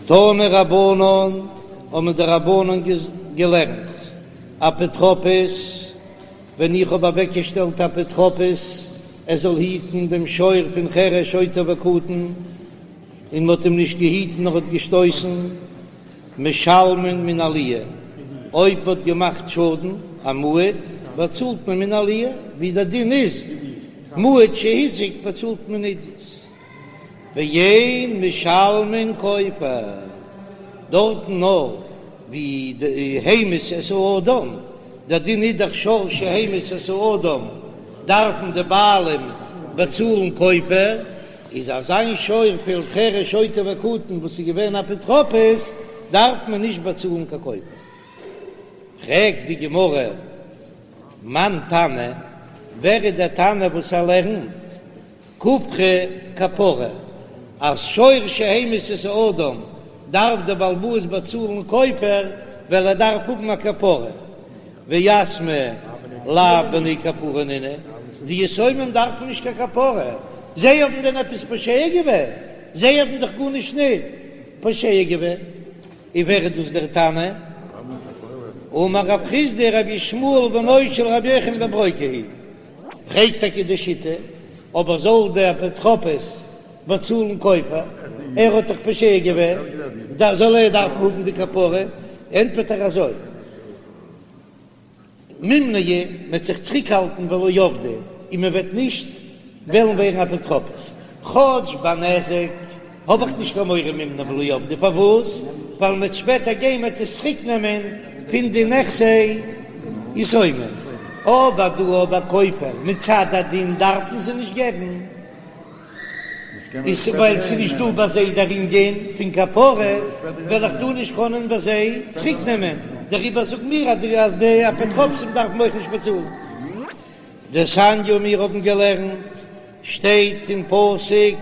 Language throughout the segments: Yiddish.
תנו רבנן, האבן די רבנן געלערנט, אפוטרופוס, ווען איך האב אוועקגעשטעלט אפוטרופוס ער זאל היטן דעם שור פון חרש שוטה וקטן, און מ'האט אים נישט געהיטן נאר האט געשטויסן, משלמין מן העליה, אויב מ'האט געמאכט שאדן, א מועד, באצאלט מען מן העליה, ווי דער דין איז, מועד שהזיק באצאלט מען עידית. ואין משלמין כופר, דארטן נאר ווי די המית את האדם, דער דין איז דאך שור שהמית את האדם דארפן די בעלים באצאלן כופר, איז אזא שור פון חרש שוטה וקטן וואס איז געווען אפוטרופוס דארף מען נישט באצאלן קיין כופר. פרעגט די גמרא, מאן תנא, ווער איז דער תנא וואס ער לערנט כופרא כפרה, אז שור שהמית את האדם דארף דער בעל הבית באצאלן כופר ווייל ער דארף האבן א כפרה, ויתמי לאו בני כפרה נינהו, די יתומים דארפן נישט קיין כפרה, זיי האבן דען עפעס פושע געווען? זיי האבן דאך גארנישט ניט פושע געווען. און ווער איז דאס דער תנא? אמר רב חסדא רבי ישמעאל בנו של רבי יוחנן בן ברוקה היא. פרעגט טאקע די שיטה, אבער זאל דער אפוטרופוס באצאלן כופר, ער האט דאך פושע געווען, זאל ער דארפן האבן די כפרה? ענטפערט ער אזוי, מימנעי, מען וועט זיך צוריקהאלטן ולא עבדי, און מען וועט נישט וועלן ווערן אפוטרופוס, כאטש ביי נזק האב איך נישט קיין מורא מימנעי ולא עבדי, פארוואס? ווייל מען וועט שפעטער גיין מען וועט עס צוריק נעמען פון די נכסי יתומים, אבער דא ביי כופר מצד הדין דארף מען זיי נישט געבן, איז ווייל ס'איז נישט דא ביי זיי דער ענין פון כפרה, וועל איך דא נישט קענען ביי זיי צוריק נעמען, דעריבער זאגן מיר אז די אפוטרופסים דארפן אויך נישט באצאלן. דתניא מיר האבן געלערנט, שטייט אין פסוק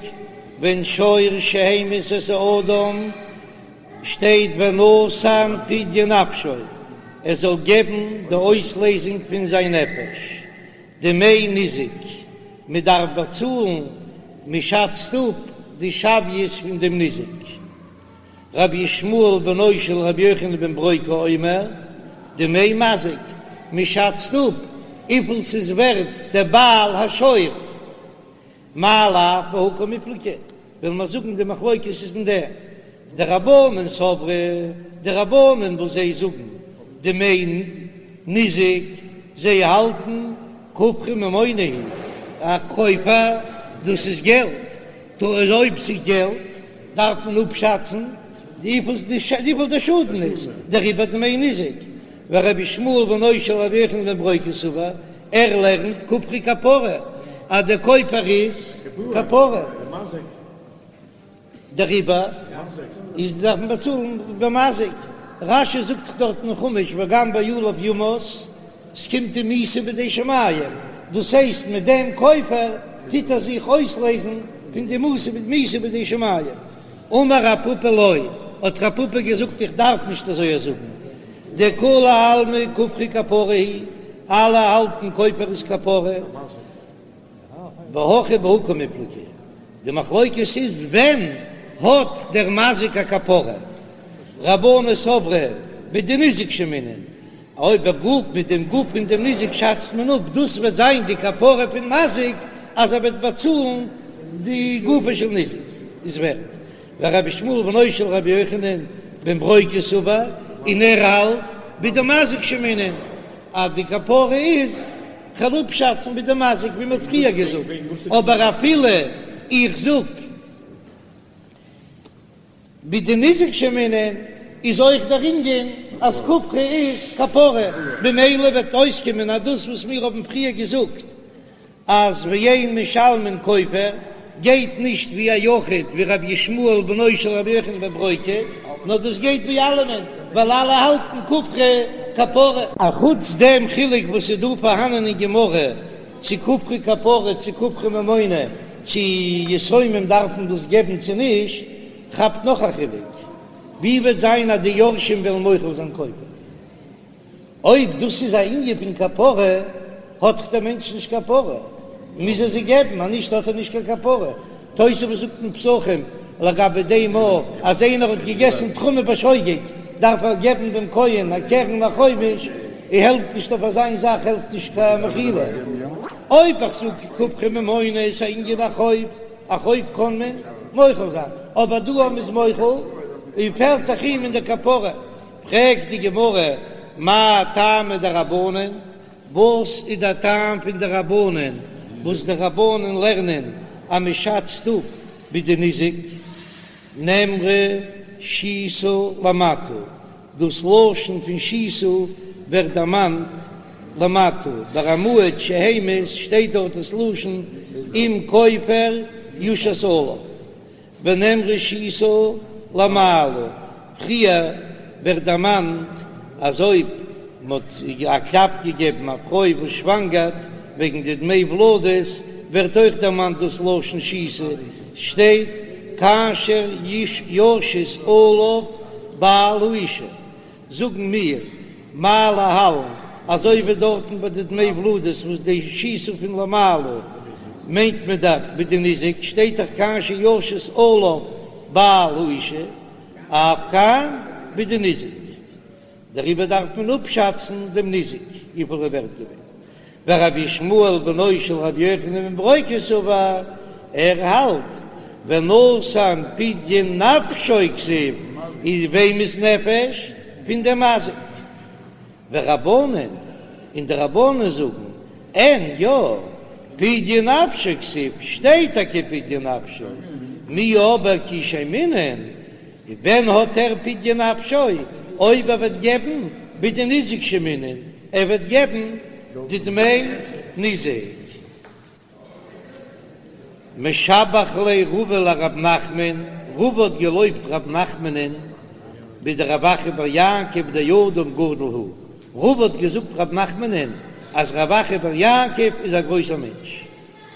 ווען שור שהמית את האדם, שטייט ונתן פדיון נפשו, ער זאל געבן די אויסלעזונג פון זיין נפש, דמי ניזק, מען דארף באצאלן, מען שאצט אפ די שוויות פון דעם ניזק. רבי ישמעאל בנו של רבי יוחנן בן ברוקה אומר, דמי מזיק, מען שאצט אפ וויפיל ס'איז ווערט דער בעל השור, מאי לאו בהא קמיפלגי, וועלן מיר זאגן די מחלוקת איז אין דעם, דרבנן סברי, די רבנן וואס זיי זאגן דמי ניזק, זיי האלטן כופרא ממונא הוא, א כופר דאס איז געלט, טא אויב ס'איז געלט דארף מען אפשאצן וויפיל די שאדן איז, דעריבער דמי ניזק, ורבי ישמעאל בנו של רבי יוחנן בן ברוקה סבר, ער לערנט כופרא כפרה אז די כופר איז כפרה, דעריבער איז דארף מען באצאלן במזיק, רש"י זאגט דאך דארט אין חומש וגם בעליו יומת, ס'קומט אים מיתה בידי שמים, דאס הייסט מיט דעם כופר טוט ער זיך אויסלעזן פון די מיתה בידי שמים. אמר רב פפא לא, האט רב פפא געזאגט איך דארף נישט אזוי זאגן, דכולי עלמא כופרא כפרה היא, אלע האלטן כופר איז כפרה, והכא בהא קמיפלגי, די מחלוקת איז ווען האט דער מזיק א כפרה, רבנן סברי בדניזק שיימינן, אויב דער גוף מיט דעם גוף פון דעם ניזק שאצט מען אפ, דאס וועט זיין די כפרה פון מזיק אז ער וועט באצאלן די גופו של ניזק איז ווערט. ורבי ישמעאל בנו של רבי יוחנן בן ברוקה סבר, און ער האלט בדמזיק שיימינן אז די כפרה איז כ'וועל אפשאצן בדמזיק ווי מ'האט פריער געזאגט, אבער אפילו איך זאג בדניזק שיימינן איז אויך דער ענין אז כופרא איז כפרה, במילא וועט אויסקומען אז דאס וואס מיר האבן פריער געזאגט אז ואין משלמין כופר גייט נישט ווי א יחיד ווי רבי ישמעאל בנו של רבי יוחנן בן ברוקה, נאר דאס גייט ווי אלעמען ווייל אלע האלטן כופרא כפרה. אחוץ דעם חילוק וואס איז דא פארהאנען אין גמרא צו כופרא כפרה צו כופרא ממונא, צו יתומים דארפן דאס געבן צו נישט, כאפט נאך א חילוק, ווי וועט זיין אז די יורשים וועלן מוחל זיין כופר? אויב דאס איז א ענין פון כפרה, האט דאך דער מענטש נישט כפרה, מוז ער זיי געבן, אז נישט האט ער נישט קיין כפרה. תוספות זאגט אין פסחים. לגבי דעם א אז איינער האט געגעסן תרומה בשוגג דארף ער געבן דעם כהן א קרן א חומש, און העלפט נישט אויף אזיין זאך העלפט נישט קיין מחילה. אויב איך זאג כופרא ממונא איז א ענין א חוב, א חוב קען מען מוחל זיין, אבער דא אז מ'איז מוחל און פעלט דאך אים אין די כפרה, פרעגט די גמרא מאי טעמא דרבנן, וואס איז דער טעם פון די רבנן וואס די רבנן לערנען אז מען שאצט אפ בדניזק נאמרה שיתה למטה, דאס לשון פון שיתה ווערט דערמאנט למטה, ביי א מועד שהמית שטייט דארט דאס לשון אם כופר יושת עליו. ונאמרה שיתה למעלה, פריער ווערט דערמאנט אז אויב מ'האט א קלאפ געגעבן א פרוי וואס שוואנגערט וועגן די דמי ולדות, ווערט אויך דערמאנט דאס לשון שיתה, שטייט כאשר ישית עליו בעל האשה, זאגן מיר, מה להלן, אזוי ווי דארטן ביי די דמי ולדות וואס די שיתה פון למעלה מיינט מען דאך בדניזק, שטייט דאך כאשר ישית עליו בעל האשה, אף כאן בדניזק, דעריבער דארף מען אפשאצן דעם ניזק וויפיל ער ווערט געווען. ורבי ישמעאל בנו של רבי יוחנן בן ברוקה סבר, ער האלט, ונתן פדיון נפשו כתיב, איז וועמענס נפש? פון דעם מזיק. ורבנן, און די רבנן זאגן, אין, יא, פדיון נפשו כתיב, שטייט טאקע פדיון נפשו, מיהו אבער כי שיימינן, ווען האט ער פדיון נפשו? אויב ער וועט געבן בדניזק שיימינן, ער וועט געבן די דמי ניזק. משבח ליה רבא לרב נחמן, רבא האט געלויבט רב נחמנ'ן בדרב אחא בר יעקב דאדם גדול הוא, רבא האט געזאגט רב נחמנ'ן אז רב אחא בר יעקב איז א גרויסער מענטש.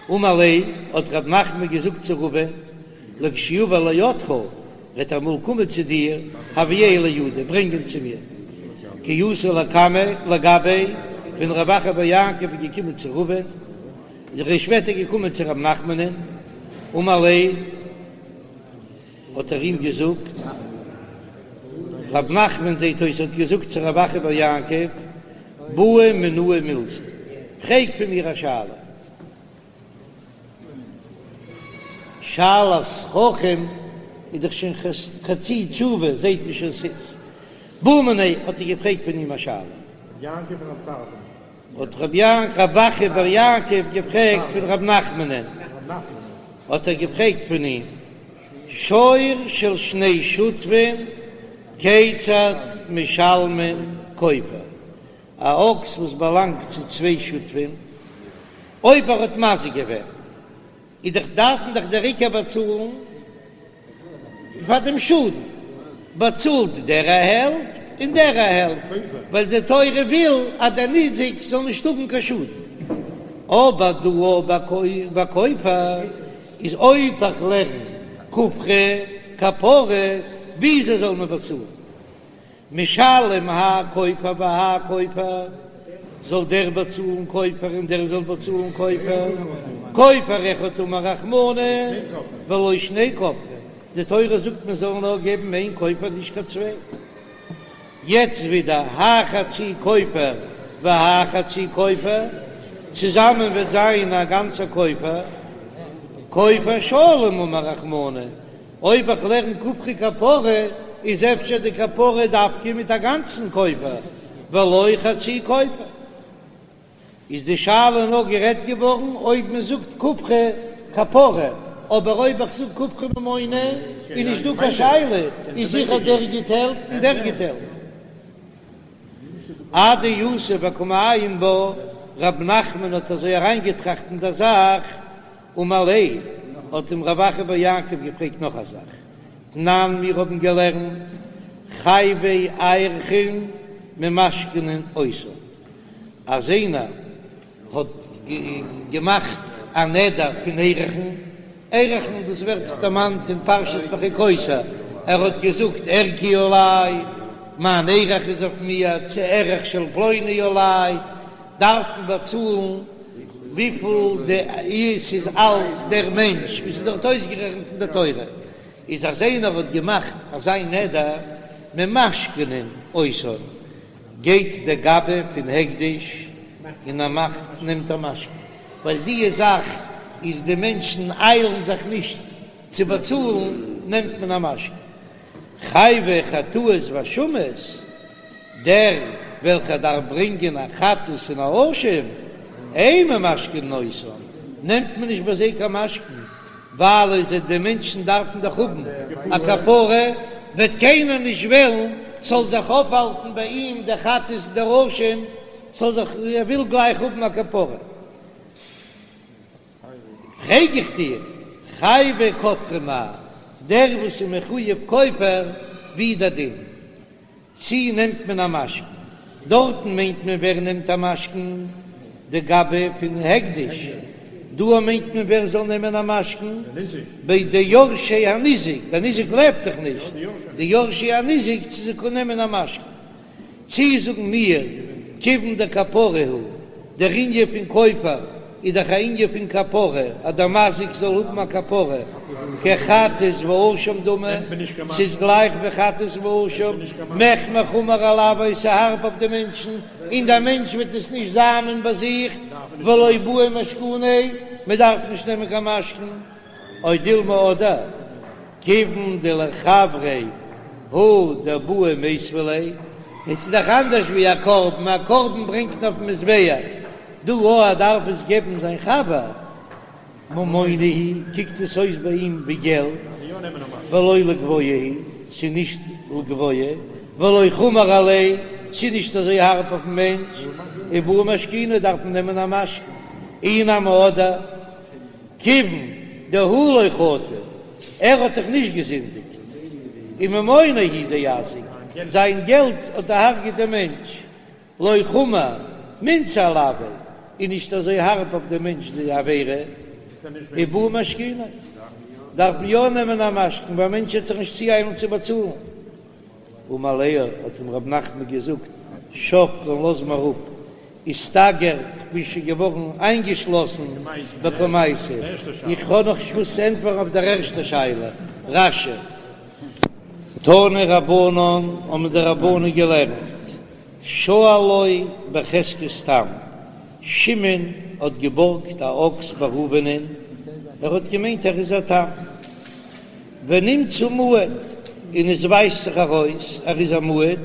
אמר ליה, האט רב נחמן געזאגט צו רבא'ן, לכשיבא לידך, וועט ער אמאל קומען צו דיר, הביאהו לידי, ברענג אים צו מיר. כי אתא לקמיה, לגביה, ווען רב אחא בר יעקב איז געקומען צו רבא'ן, איז ער שפעטער געקומען צו רב נחמנ'ן, אמר ליה, האט ער אים געזאגט, רב נחמן זעט אויס האט געזאגט צו רב אחא בר יעקב, בעי מינאי מילתא, פרעג פון מיר א שאלה. שאלת חכם איז דאך שוין חצי תשובה, זעט מען שוין ס'איז. בעא מיניה, האט ער געפרעגט פון אים א שאלה. האט רב יעקב, רב אחא בר יעקב געפרעגט פון רב נחמנ'ן, האט ער געפרעגט פון אים, שור של שני שותפין כיצד משלמין כופר, א אקס וואס באלאנגט צו צוויי שותפים, אויב ער האט מזיק געווען, איז דאך דארף מען דאך דער עיקר באצאלן פאר דעם שאדן, באצאלט דער א העלפט און דער א העלפט, ווייל די תורה וויל אז דער ניזק זאל נישט האבן קיין שאדן. אבער דא ביי כופר איז אויב איך לערן כופרא כפרה, וויאזוי זאל מען באצאלן? משלם האי כופר והאי כופר, זאל דער באצאלן כופר און דער זאל באצאלן כופר, כופר אחד אמר רחמנא ולא שני כופרים, די תורה זאגט מען זאל נאר געבן איין כופר נישט קיין צוויי. יעצט ווידער האי חצי כופר והאי חצי כופר, צוזאמען וועט זיין א גאנצע כופר, כופר שלם אמר רחמנא, אויב איך לערן כופרא כפרה איז אפשר די כפרה דווקא מיט א גאנצן כופר ולא חצי כופר. איז די שאלה נאר גערעדט געווארן אויב מען זאגט כופרא כפרה, אבער אויב איך זאג כופרא ממונא איז נישט דא קיין שאלה, איז זיכער דער גיט העלפט און דער גיט העלפט. אדיתיב וקא מעיין בה, רב נחמן האט אזוי אריינגעטראכט אין דער זאך, אמר ליה, האט אים רב אחא בר יעקב געפרעגט נאך א זאך, תנן מיר האבן געלערנט חייבי ערכין ממשכנין אותן, אז איינער האט געמאכט א נדר פון ערכין, ערכין דאס ווערט דאך דערמאנט אין פרשת בחוקותי, ער האט געזאגט ערכי עלי, מיין ערך איז אויף מיר, צו ערך של פלוני עלי, דארף מען באצאלן וויפיל די ס'איז אלט דער מענטש, ווי ס'איז דארט אויסגערעכנט אין די תורה. איז אז איינער האט געמאכט אזא נדר ממשכנין אותן, גייט דער גבאי פון הקדש און ער מאכט נעמט א משכון, ווייל דיע זאך איז די מענטשן איילן זיך נישט צו באצאלן, נעמט מען א משכון. חייבי חטאות ואשמות, דער וועלכער דארף ברענגען א חטאת און א אשם, אין ממשכנין אותן, נעמט מען נישט ביי זיי קיין משכון, ווייל אויב זיי די מענטשן דארפן דאך האבן א כפרה, וועט קיינער נישט וועלן ס'זאל זיך אויפהאלטן ביי אים דער חטאת דער אשם, ס'זאל זיך, ער וויל גלייך האבן א כפרה. פרעג איך דיר, חייבי כופרין מאי, דער וואס איז מחויב כופר, ווי איז דער דין? צי נעמט מען א משכון? דארטן מיינט מען ווער נעמט א משכון? די גבאי פון הקדש. דא מיינט מען ווער זאל נעמען א משכון? ביי די יורשי הניזק, דער ניזק לעבט דאך נישט, די יורשי הניזק צו זיי קענען נעמען א משכון. צי זאגן מיר, כיוון דכפרה הוא, דער ענין פון כופר איז דאך א ענין פון כפרה, אז דער מזיק זאל האבן א כפרה, כחטאת ואשם דמי, ס'איז גלייך ווי חטאת ואשם, מחמר חמור עילויה, ס'הארב אויף די מענטשן, און דער מענטש וועט עס נישט זאמען ביי זיך, ולא בעי משכוניה, מען דארף נישט נעמען קיין משכון. או דילמא אדער כיוון דלחבריה הוא דבעי מיתבא ליה, עס איז דאך אנדערש ווי א קרבן, א קרבן ברענגט מען אויפן מזבח, דא אויב ער דארף עס געבן זיין חבר, ממונא הוא, קוקט עס אויס ביי אים ווי געלט, ולא לגבוה הוא, ס'איז נישט לגבוה, ולא חמור עליה, ס'איז נישט אזוי הארב אויפן מענטש, ובעי משכוני דארף מען נעמען א משכון, אי נמי אדער. כיוון דהוא לא חטא, ער האט דאך נישט געזינדיגט, וממוניה הוא דאזיק, זיין געלט האט דערהרגעט דעם מענטש, לא חמור מילתא עילויה, איז נישט אזוי הארב אויף דעם מענטש די עבירה, ובעי משכוני, דארף מען יא נעמען א משכון, ווייל א מענטש וועט זיך נישט צואיילן צו באצאלן. אמר ליה, האט אים רב נחמן געזאגט, שבקן לאז מיר אפ, איסתגר, כ'בין שוין געווארן איינגעשלאסן בקמייתא, איך האב נאך נישט וואס צו ענטפערן אויף דער ערשטער שאלה, רש"י. תנו רבנן, האבן די רבנן געלערנט, שאלו בחזקת תם, שמעון האט געבארגט א אקס ביי ראובנ'ען, ער האט געמיינט ער איז א תם. ונמצא מועד, און עס ווייזט זיך ארויס ער איז א מועד,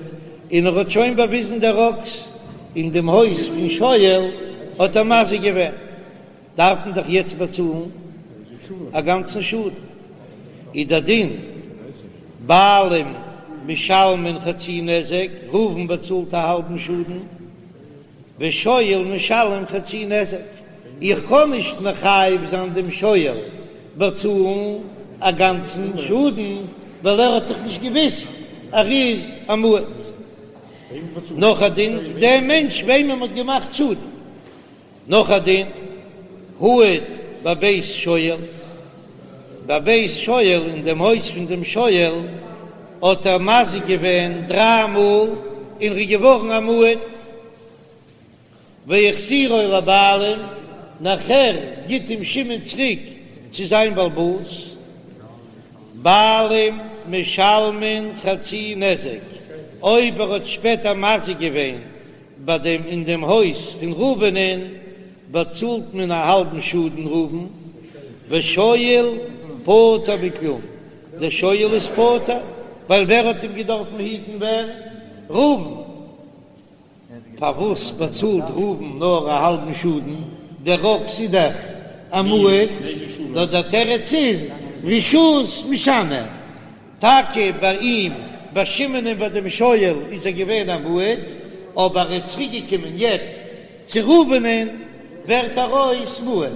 און ער האט שוין באוויזן דער אקס אין דעם הויז פון שואל האט ער מזיק געווען, דארף מען דאך יעצט באצאלן א גאנצן שאדן, איז דער דין בעלים משלמין חצי נזק, ראובן באצאלט א האלבן שאדן. ושואל משלם חצי נזק, איך קען נישט מחייב זיין דעם שואל באצאלן א גאנצן שאדן, ווייל ער האט דאך נישט געוויסט ער איז א מועד. נאך א דין, דער מענטש וועמען מ'האט געמאכט שאדן. נאך א דין, הועד בבית שואל, בבית שואל, אין דעם הויז פון דעם שואל האט ער מזיק געווען דריי מאל און ר'איז געווארן א מועד, והחזירו לבעלים, נאכער גיט אים שמעון צוריק צו זיין בעל הבית, בעלים משלמין חצי נזק, אויב ער האט שפעטער מזיק געווען ביי דעם אין דעם הויז פון ראובנ'ען באצאלט מען א האלבן שאדן ראובן, ושואל פטור מכלום, דער שואל איז פטור, ווייל ווער האט אים געדארפן היטן ווער? ראובן, פארוואס באצאלט ראובן נאר א האלבן שאדן, דער אקס איז דאך א מועד, נאר דער תירוץ איז רשות משנה, טאקע ביי אים, ביי שמעונ'ען ביי דעם שואל איז ער געווען א מועד, אבער ער איז צוריק געקומען יעצט צו ראובנ'ען ווערט ער אויס מועד.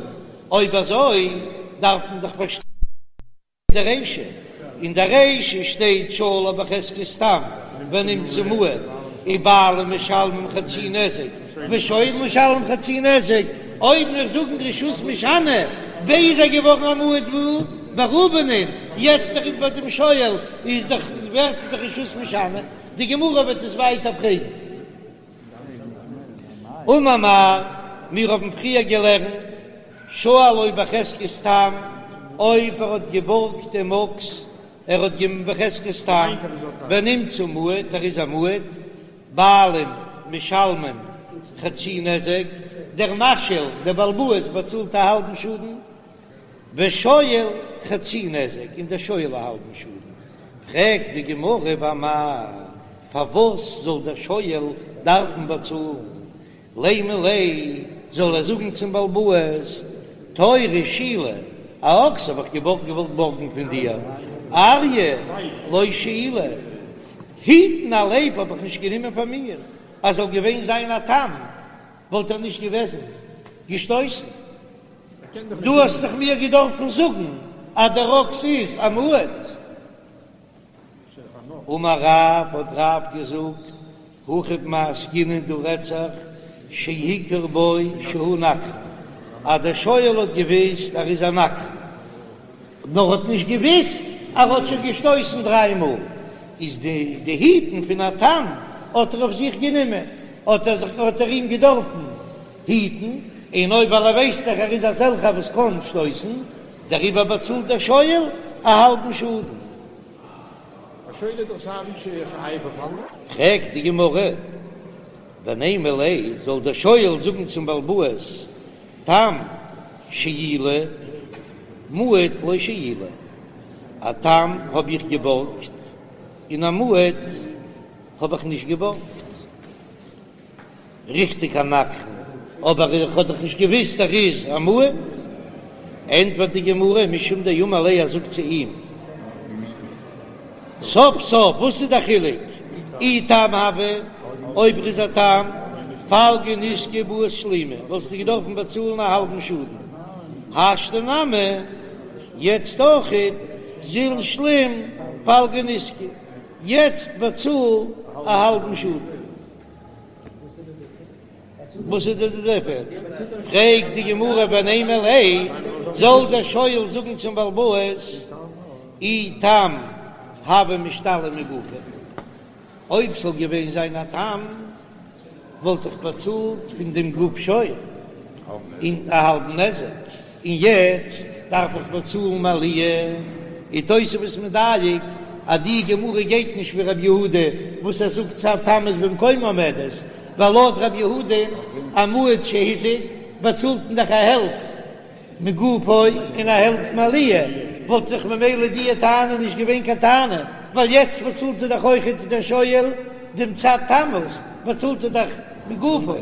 אויב אזוי דארף מען דאך פארשטיין די רישא, אין די רישא שטייט שאלו בחזקת תם ונמצא מועד, ובעלים משלמים חצי נזק ושואל משלם חצי נזק, אויב מיר זאגן רשות משנה, ווי איז ער געווארן א מועד וואו? ביי ראובנ'ען, יעצט ער איז ביי דעם שואל איז דאך ווערט דאך רשות משנה, די גמרא וועט עס ווייטער פרעגן. אמר מר, מיר האבן פריער געלערנט, שאלו בחזקת תם, אויב ער האט געבארגט דעם אקס. ער האט געבן בחזקת תם, ונמצא מועד, ער איז א מועד, בעלים משלמים חצי נזק, דער משאיל, דער בעל הבית באצאלט א האלבן שאדן, ושואל חצי נזק, און דער שואל א האלבן שאדן. פרעגט די גמרא ואמאי, פארוואס זאל דער שואל דארפן באצאלן? לימא ליה, זאל ער זאגן צום בעל הבית, תורא שאילי, א אקס האב איך געוואלט געוואלט בארגן פון דיר, אריא לא שאילי, היטן א לייב האב איך נישט גענומען פאר מיר, אז זאל געווען זיין א תם וואלט ער נישט געוועזן געשטויסן. דו האסט דאך מיר געדארפן זאגן אז דער אקס איז א מועד. אמר רב, האט רב געזאגט, הכא במאי עסקינן דא רעדט זיך שהכיר בו שהוא נגחן, אז דער שואל האט געוויסט ער איז א נגחן, נאר האט נישט געוויסט אז ער האט שוין געשטויסן דריי מאל, איז די די היטן פון א תם האט ער אויף זיך גענומען, האט ער זיך האט ער אים געדארפן היטן, און אויב ווייל ער ווייסט דאך ער איז אזעלכער וואס קען שטויסן, דעריבער באצאלט דער שואל א האלבן שאדן. א שואל איז דאך סיי ווי חייב אויף אנדערע. פרעגט די גמרא, ונימא ליה, זאל דער שואל זאגן צום בעל הבית, תם שאילי, מועד לא שאילי, א תם האב איך געבארגט, און א מועד האב איך נישט געבארגט. ריכטיג א נגחן, אבער איך האב דאך נישט געוויסט ער איז א מועד. ענטפערט די גמרא, משום דאמר ליה, ער זאגט צו אים, סוף סוף וואס איז די חילוק, אי תם הוה, אויב ער איז א תם, פלגא נזקא בעית שלומי, וואלסטו געדארפן באצאלן א האלבן שאדן, השתא נמי, יעצט אויכעט, זיל שלים פלגא נזקא, יעצט באצאל א האלבן שאדן. וואס איז די דיפערענץ? פרעגט די גמרא ונימא ליה, זאל דער שואל זאגן צום בעל הבית, אי תם הוה משתלם מגופיה, אויב ס'זאל געווען זיין א תם וואלט איך באצאלט פון דעם גוף שור און א האלבן נזק, און יעצט דארף איך באצאלן מעליה, איז תוספות מדייק אז די גמרא גייט נישט ווי רב יהודה וואס ער זאגט צד תמות במקומה עומדת, ווייל לויט רב יהודה א מועד שהזיק באצאלט מען דאך א העלפט מגופו און א העלפט מעליה, וואלט זיך ממילא די טענה נישט געווען קיין טענה, ווייל יעצט באצאלט ער דאך אויכעט דער שואל דעם צד תמות באצאלט ער דאך מגופו.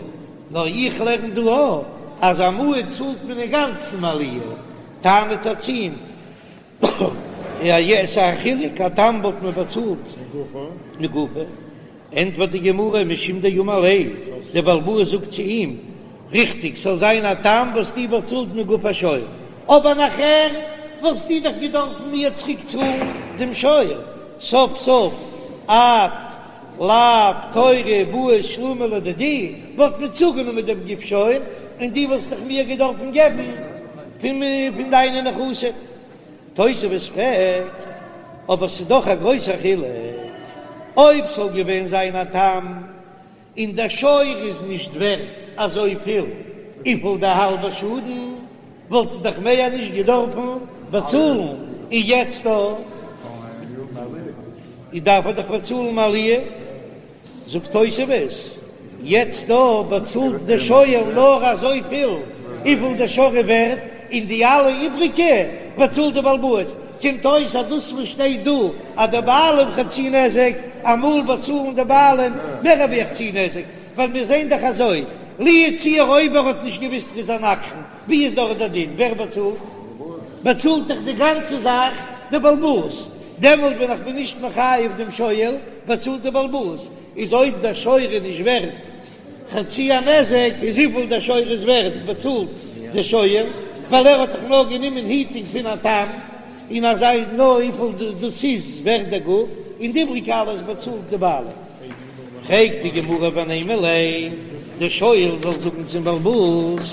נאר איך לערן דא אויך אז א מועד צאלט מען אינגאנצן מעליה, טענה'ט ער צו אים, יא ס'איז א חילוק, א תם וואלט מען באצאלט מגופו, ענטפערט די גמרא משום דאמר ליה, דער בעל הבית זאגט צו אים, ריכטיג ס'זאל זיין א תם וואלסטו באצאלט מגוף השור, אבער נאכער וואלסטו דאך געדארפן מיר צוריק צאלן דעם שור, סוף סוף את לאו תורא בעית שלומי לדידי, וואלט מען צוגענומען דעם גוף שור, און דו וואלסט דאך מיר געדארפן געבן פון פון דיינע נכסים. תוספות פרעגט, אבער ס'איז דאך א גרויסער חילוק, אויב ס'זאל געווען זיין א תם, און דער שור איז נישט ווערט אזויפיל וויפיל די האלבע שאדן, וואלט ער דאך מער נישט געדארפן באצאלן, און יעצט דא דארף ער דאך באצאלן מעליה, זאגט תוספות, יעצט דא באצאלט דער שואל נאר אזויפיל וויפיל דער שור איז ווערט, און די אלע איבריגע באצאלט דער בעל הבית, קומט אויס אז דאס וואס שטייט דא אז די בעלים חצי נזק, אמאל באצאלן די בעלים מער ווי א חצי נזק, ווייל מיר זעען דאך אזוי, לו יצוייר אויב ער האט נישט געוויסט ר'איז א נגחן, ווי איז דארט דער דין? ווער באצאלט? באצאלט דאך די גאנצע זאך די בעל הבית, דעמאלט ווען איך בין נישט מחייב דעם שואל, באצאלט די בעל הבית, איז אויב דער שור איז נישט ווערט חצי הנזק, איז וויפיל דער שור איז ווערט באצאלט דער שואל, ווייל ער האט דאך נאר גענומען היטינג פון א תם, און אזוי נאר וויפיל דאס איז ווערט דער גוף, און די איבריגע אלעס באצאלט די בעלים. פרעגט די גמרא ונימא ליה, דער שואל זאל זאגן צום בעל הבית,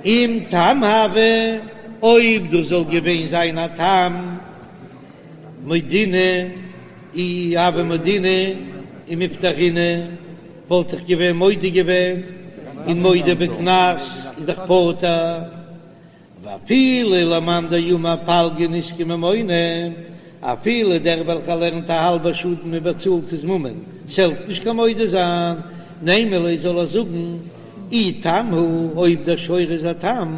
אם תם הוה, אויב דאס זאל געווען זיין א תם, מודינא אי הוה מודינא ומפטרינא, וואלט איך געווען מודה געווען און מודה בקנס איז דאך פטור. ואפילו למאן דאמר פלגא נזקא ממונא, אפילו דער וועלכער לערנט א האלבע שאדן מען באצאלט איז ממון, ס'העלפט נישט קיין מודה זיין, נימא ליה זאל ער זאגן אי תם הוא, אויב דער שור איז א תם,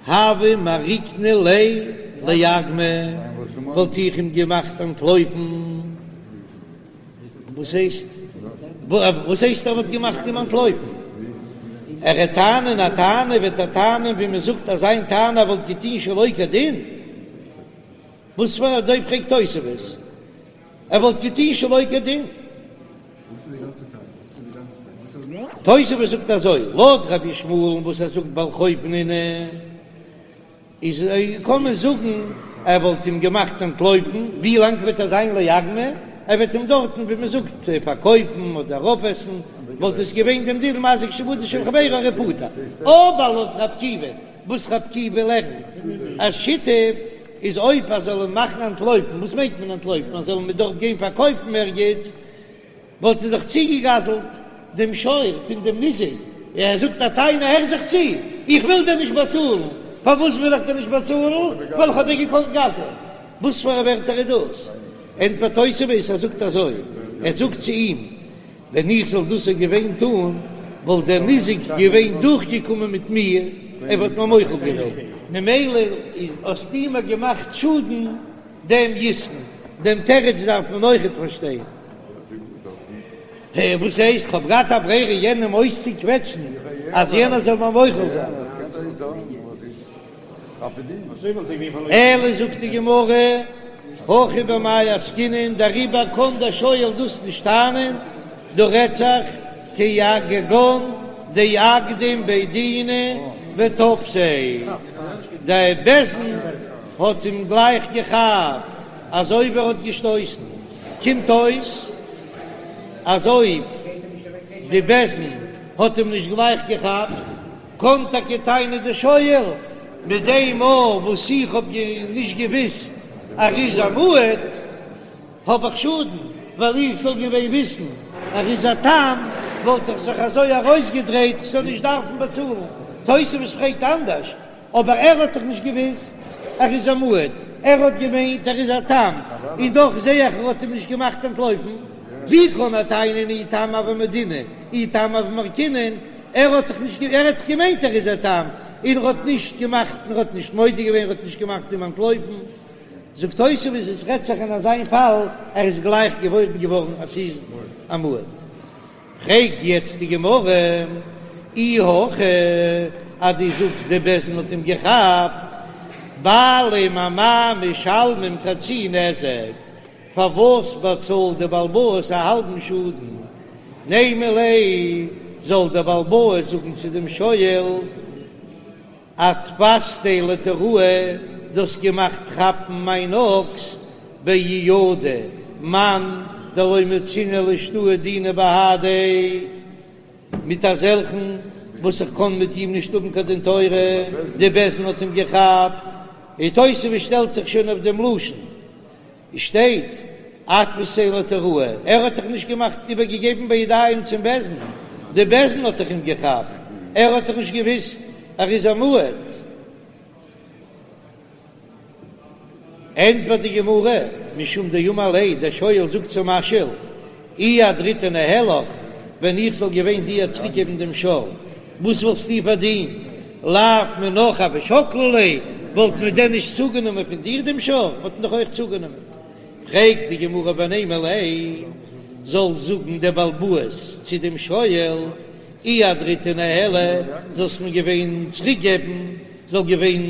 הוה מעריקנא ליה לאגמא, וואלט איך אים געמאכט אנטלויפן. וואס הייסט? וואס הייסט ער וואלט געמאכט אים אנטלויפן? ער וועט טענה'ן א טענה וועט ער טענה'ן ווי מען זאגט אז זיין טענה וואלט געטוהן שלא כדין. וואס פאר אזוי פרעגט תוספות ער וואלט געטוהן שלא כדין. תוספות זאגט אזוי לויט רבי ישמעאל'ן וואס ער זאגט בעל חוב נינהו. איז קען מען זאגן ער וואלט אים געמאכט אנטלויפן, ווי לאנג וועט ער זיין לאגמא? ער וועט אים דארטן ווי מען זאגט פארקויפן אדער אויפעסן, וואלט עס געווען דעם דין מזיק שעבודו של חבירו הרי פטור. אבער לויט רבי עקיבא, וואס רבי עקיבא לערנט אז שיתף איז אויב ער זאל אים מאכן אנטלויפן, וואס מיינט מען אנטלויפן? ער זאל אים דארט גיין פארקויפן ערגעץ, וואלט ער דאך צוגעגזלט דעם שור פון דעם ניזק, ער זאגט א טענה, הער זיך צו, איך וויל דיר נישט באצאלן, פארוואס וויל איך דיר נישט באצאלן? ווייל איך האב דיר געקאנט גזל'ען. וואס פאר א ווערטער איז דאס? ענטפערט תוספות, ער זאגט אזוי, ער זאגט צו אים, ווען איך זאל דאס געווען טון, וואלט דער ניזק געווען דורכגעקומען מיט מיר, ער וואלט מיר מוחל געווען, ממילא איז האסטו מיר געמאכט שאדן דעם יתרון, דעם תירוץ דארף מען אויכעט פארשטיין. וואס הייסט? כ'האב געהאט א ברירה יענעם אויסצוקוועטשן אז יענער זאל מיר מוחל זיין. אלא זאגט די גמרא, הכא במאי עסקינן, דעריבער קען דער שואל דאס נישט טענה'ן, דא רעדט זיך כגון דאקדים בי דינא ותפסיה, דער בית דין האט אים גלייך געכאפט אזוי ווי ער האט געשטויסן, קומט אויס אז אויב די בית דין האט אים נישט גלייך געכאפט, קען טאקע טענה'ן די שואל, מיט דעם מאל וואס איך האב נישט געוויסט אז ער איז א מועד, האב איך שאדן, ווייל איך זאל געווען וויסן ער איז א תם, וואלט איך זיך אזוי ארויסגעדרייט כ'זאל נישט דארפן באצאלן. תוספות פרעגט אנדערש, אבער ער האט דאך נישט געוויסט ער איז א מועד, ער האט געמיינט ער איז א תם, און דאך זעה איך ער האט אים נישט געמאכט אנטלויפן, ווי קען ער טענה'ן אי תם הוה מודינא אי תם הוה מעריקנא, ער האט דאך נישט ער האט דאך געמיינט ער איז א תם, און ער האט נישט געמאכט און ער האט נישט מודה געווען ער האט נישט געמאכט אים אנטלויפן, זאגט תוספות עס רעדט זיך אין אזיין פאל ער איז גלייך געוואויר געווארן אז ס'איז א מועד. פרעגט יעצט די גמרא, אי הכי אז דו זאגסט די בית דין האט אים געכאפט, בעלים אמאי משלמים חצי נזק, פארוואס באצאלט די בעל הבית א האלבן שאדן? נימא ליה, זאל דער בעל הבית זאגן צו דעם שואל, אתפסתיה לתוראי, דו האסט געמאכט כאפן מיין אקס באידוי מאן דלא מצינא לאשתעויי דינא בהדיה, מיט אזעלכן וואס איך קען מיט אים נישט האבן קיין דין תורה, די בית דין האט אים געכאפט, און תוספות שטעלט זיך שוין אויף דעם לשון. שטייט אתפסתיה לתוראי, ער האט דאך נישט געמאכט איבערגעגעבן בידיים צום בית דין, די בית דין האט דאך אים געכאפט, ער האט דאך נישט געוויסט ער איז א מועד. ענטפערט די גמרא, משום דאמר ליה, דער שואל זאגט צום משאיל, אי אהדרתיה ניהלך, ווען איך זאל געווען דיר צוריקגעבן דעם שור, וואס וואלסטו פארדינט? לאו מינך הוו שקלי ליה, וואלט מען דען נישט צוגענומען פון דיר דעם שור? וואלט מען דאך אויך צוגענומען. פרעגט די גמרא ונימא ליה, זאל זאגן דער בעל הבית צו דעם שואל, אי אהדרתיה ניהלי, זאלסט מיר געווען צוריקגעבן, זאל געווען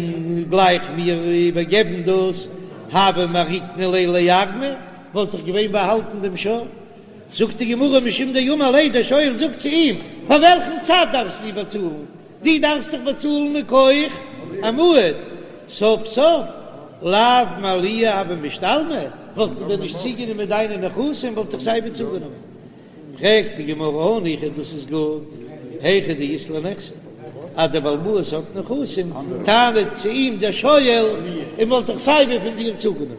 גלייך מיר איבערגעבן דאס, הוה מעריקנא ליה לאגמא, וואלט איך געווען באהאלטן דעם שור. זאגט די גמרא משום דאמר ליה, דער שואל זאגט צו אים, פאר וועלכן צד דארפסטו באצאלן? דו דארפסט דאך באצאלן מכח א מועד, סוף סוף לאו מעליה הוו משתלמי, וואלט מען דען נישט צוגענומען דיינע נכסים, וואלט איך סייווי צוגענומען. פרעגט די גמרא הניחא דאס איז גוט, היכא דאית ליה נכסי, אז דער בעל הבית האט נכסים, טענה'ט צו אים דער שואל, און וואלט איך סייווי פון דיר צוגענומען,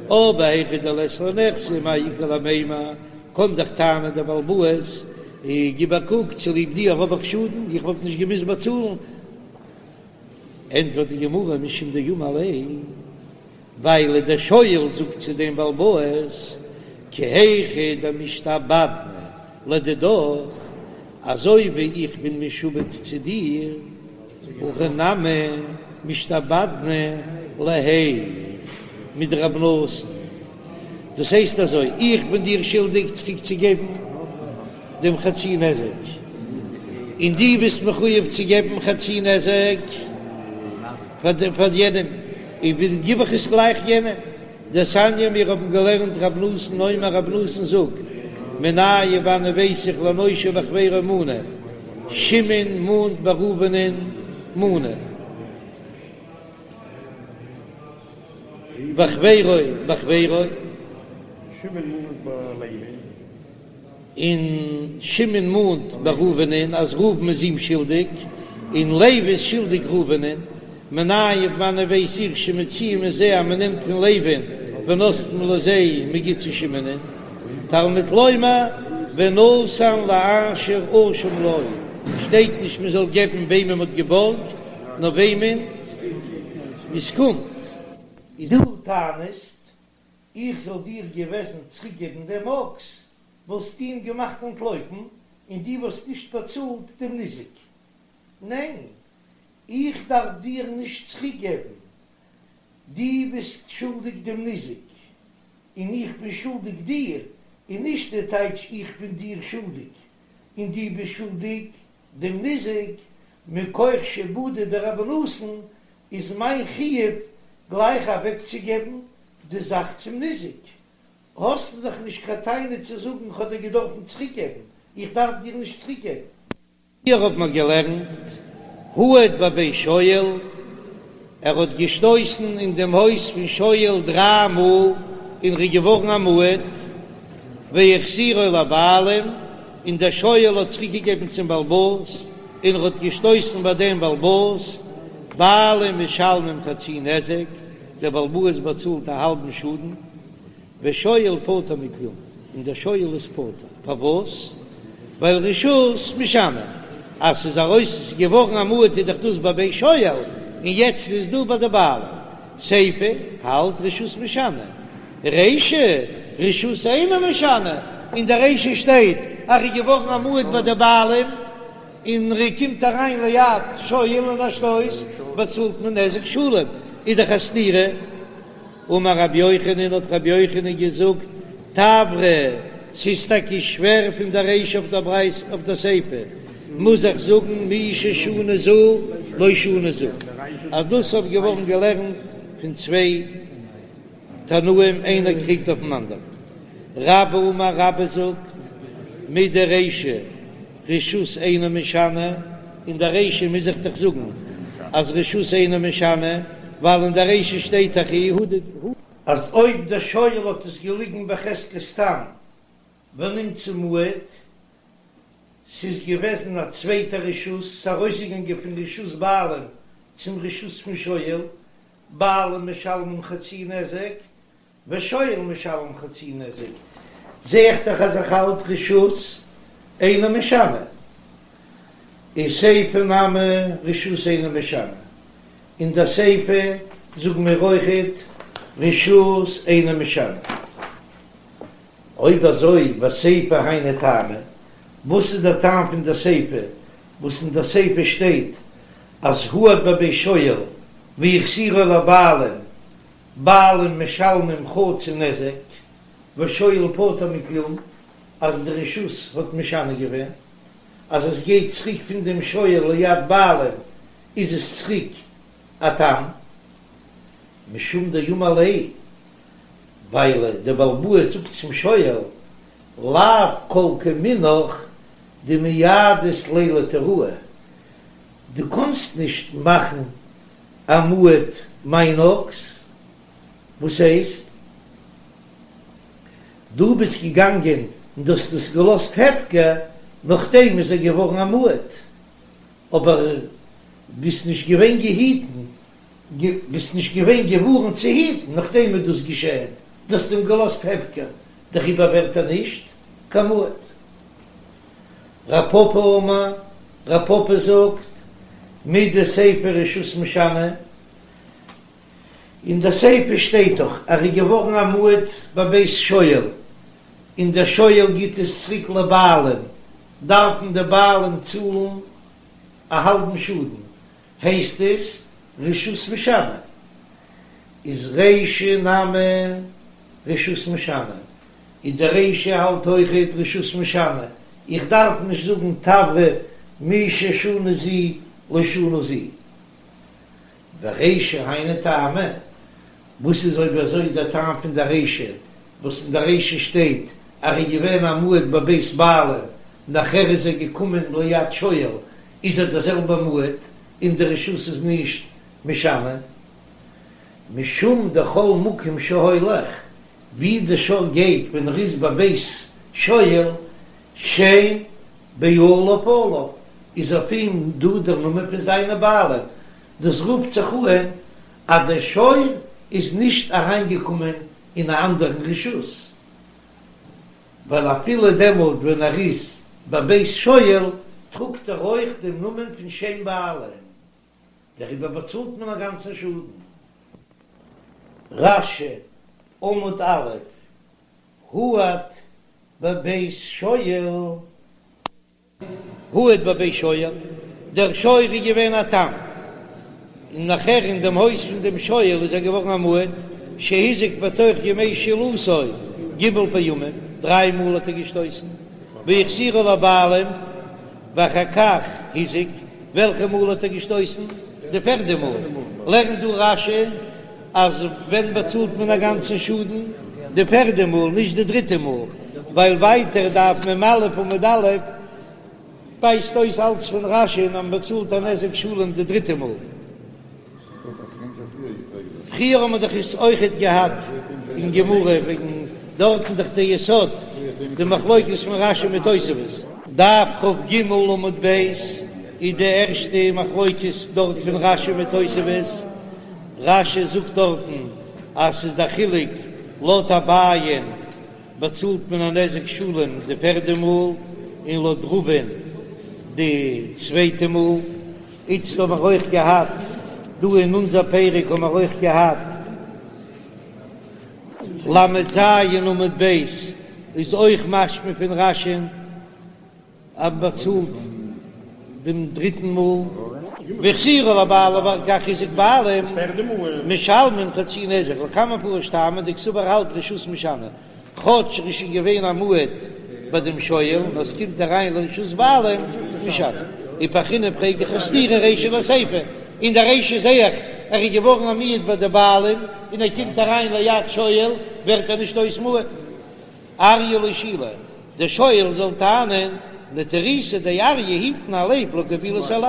אבער היכא דלית ליה נכסי מאי איכא למימר, קען דאך טענה'ן דער בעל הבית, גיב א קוק, צוליב דיר האב איך שאדן, איך וואלט נישט געמוזט באצאלן. ענטפערט די גמרא משום דאמר ליה, ווייל דער שואל זאגט צו דעם בעל הבית, כי היכי דמשתעבדנא לדידך, אזוי ווי איך בין משועבד צו דיר, הכי נמי משתעבדנא להיך מדרבי נתן, דאס הייסט אזוי, איך בין דיר שולדיג צוריק צו געבן דעם חצי נזק, און דו ביסט מחויב צו געבן חצי נזק פאר יענעם, און גיב איך עס גלייך יענעם. דתניא מיר האבן געלערנט רב נתן אומר רב נתן זאגט, מנין וואנען ווייס איך לנושה בחבירו מנה, שמעון מאנט ביי ראובנ'ען מנה, וחבירו בחבירו. שמעון מאנט ביי לוי. און שמעון מאנט ביי ראובנ'ען אז ראובן איז אים שולדיג, און לוי איז שולדיג ראובנ'ען, מנין וואנען ווייס איך שמוציאין מזה אז מ'נעמט פון לוי'ן ונותנין לזה מ'גיט צו שמעונ'ען, תלמוד לומר ונתן לאשר אשם לו, שטייט נישט מ'זאל געבן וועמען מ'האט געבארגט, נאר וועמען עס קומט. דו טענה'סט איך זאל דיר געוועזן צוריקגעבן דעם אקס, וואלסטו אים געמאכט אנטלויפן, און דו וואלסט נישט באצאלט דעם ניזק. ניין, איך דארף דיר נישט צוריקגעבן, דו ביסט שולדיג דעם ניזק, און איך בין שולדיג דיר, און נישט די טייטש איך בין דיר שולדיג, און דו ביסט שולדיג דעם ניזק, מכח שעבודא דרבי נתן איז מיין חיוב גלייך אוועקצוגעבן די זאך צום ניזק, האסטו דאך נישט קיין טענה צו זאגן כ'האב דיר געדארפן צוריקגעבן, איך דארף דיר נישט צוריקגעבן. פריער האט מען געלערנט הועד בבית שואל, ער האט געשטויסן אין דעם הויז פון שואל דריי מאל און ר'איז געווארן א מועד, והחזירו לבעלים, און דער שואל האט צוריקגעגעבן צום בעל הבית, און ר'האט געשטויסן ביי דעם בעל הבית, בעלים משלמים חצי נזק, דער בעל הבית באצאלט א האלבן שאדן, ושואל פטור מכלום, און דער שואל איז פטור, פארוואס? ווייל רשות משנה, אז ס'איז ארויס געווארן א מועד איז דאך דאס בבית שואל, און יעצט איז דא ביי די בעלים, סיפא האלט רשות משנה, רישא רשות אינה משנה, אין די רישא שטייט אז ר'איז געווארן א מועד ביי די בעלים, און ער קומט אריין ליד שואל און א שטויס, באצאלט מען נזק שלם, איז דאך א סתירה. אמר רבי יוחנן, האט רבי יוחנן געזאגט, תברא, ס'איז טאקע שווער פון דער רישא אויף דער ברייתא אויף דער סיפא, מוז איך זאגן מי ששנה זו לא שנה זו, אז דאס האט געווארן געלערנט פון צוויי תנאים איינער קריגט אויפן אנדערן. רבה אמר רבה זאגט, מדרישא רשות אינה משנה, אין דער רישא מוז איך דאך זאגן אז רשות אינה משנה, ווייל אין דער רישא שטייט דאך הועד. אז אויב דער שואל האט עס געליגן בחזקת תם ונמצא מועד, ס'איז געוועזן א צווייטע רשות, ס'איז ארויסגעגאנגען פון רשות בעלים צום רשות פון שואל, בעלים משלמים חצי נזק, ושואל משלם חצי נזק, זע איך דאך אז איך האלט רשות אינה משנה, און סיפא נמי רשות אינה משנה, אין דער סיפא זאגן מיר אויכעט רשות אינה משנה. אויב אזוי וסיפא היינו טעמא, וואס איז דער טעם פון דער סיפא וואס אין דער סיפא שטייט אז הועד בבית שואל והחזירו לבעלים בעלים משלמים חצי נזק ושואל פטור מכלום, אז די רשות האט משנה געווען אז עס גייט צוריק פון דעם שואל ליד בעלים איז עס צוריק א תם משום דאמר ליה ווייל דער בעל הבית זאגט צום שואל לאו כל כמינך דמייעדת ליה לתיראי דו קאנסט נישט מאכן א מועד מיין אקס, וואס הייסט? דו ביסט געגאנגען און דו האסט עס געלאזט הפקר, נאכדעם איז ער געווארן א מועד, אבער ביסט נישט געווען געהיטן, ביסט נישט געווען געווארנט צו היטן, נאכדעם איז דאס געשען, דו האסט אים געלאזט הפקר, דעריבער ווערט ער נישט קיין מועד. רב פפא אמר, רב פפא זאגט, מדסיפא רשות משנה, אין די סיפא שטייט דאך ער איז געווארן א מועד בבית שואל, און דער שואל גיט עס צוריק לבעלים, דארפן די בעלים צאלן א האלבן שאדן, הייסט עס רשות משנה, איז רישא נמי רשות משנה, און די רישא האלט אויכעט רשות משנה, איך דארף נישט זאגן תברא מי ששנה זו לא שנה זו. ורישא היינו טעמא, וואס איז אויב אזוי דער טעם פון דער רישא, וואס אין דער רישא שטייט אז ער איז געווען א מועד בבית בעלים, נאכער איז ער געקומען ליד שואל, איז ער דער זעלבער מועד, און די רשות איז נישט משנה, משום דכל מקום שהולך, ווי די שור גייט ווען ער איז בבית שואל, שם בעליו עליו, איז אויף אים דא דער נאמען פון זיינע בעלים, דאס רופט זיך אן אז דער שור איז נישט אריינגעקומען אין א אנדערן רשות, ווייל אפילו דעמאלט ווען ער איז בבית שואל טראגט ער אויך דעם נאמען פון שם בעלים, דעריבער באצאלט מען א גאנצן שאדן. רש"י, עמוד א', הועד בבית שואל. הועד בבית שואל, דער שור איז געווען א תם, און נאכער אין דעם הויז פון דעם שואל איז ער געווארן א מועד, שהזיק בתוך ימי שאילתו ג' פעמים, דריי מאל האט ער געשטויסן, והחזירו לבעלים, ואחר כך הזיק, וועלכע מאל האט ער געשטויסן? די פערדע מאל. לערנט דא רש"י אז ווען באצאלט מען א גאנצן שאדן? די פערדע מאל, נישט די דריטע מאל, ווייל ווייטער דף מ"א עמוד א' ווייזט אויס אלץ פון רש"י אז מען באצאלט א נזק שלם די דריטע מאל. פריער האט מען דאך עס אויכעט געהאט אין גמרא וועגן דארטן דאך די יסוד די מחלוקת פון רש"י מיט תוספות. דף כ"ג עמוד ב' איז די ערשטע מחלוקת דארט פון רש"י מיט תוספות, רש"י זאגט דארטן אז ס'איז די חילוק לויט אביי'ן באצאלט מען א נזק שלם די פערדע מאל און לויט רבא'ן די צווייטע מאל. איצט האבן מיר אויך געהאט, דא אין אונזער פרק האבן מיר אויך געהאט ל"ז עמוד ב', איז אויך משמע פון רש"י'ן אז מ'באצאלט דעם דריטן מאל, והחזירו לבעלים ואחר כך הזיק בעלים משלמין חצי נזק, לקמן מפרש טעמא דקסבר האלט רשות משנה. כאטש ער איז שוין געווען א מועד ביי דעם שואל, נאר עס קומט אריין לרשות בעלים משנה. ופרכינן פרעג איך א סתירה רישא לסיפא, אין די רישא זעה איך ער איז געווארן א מועד ביי די בעלים און ער קומט אריין ליד שואל ווערט ער נישט אויס מועד. אריא לא שאילי, דער שואל זאל טענה'ן נטירותא דאריא היטן א לייב לא קבילית עלי,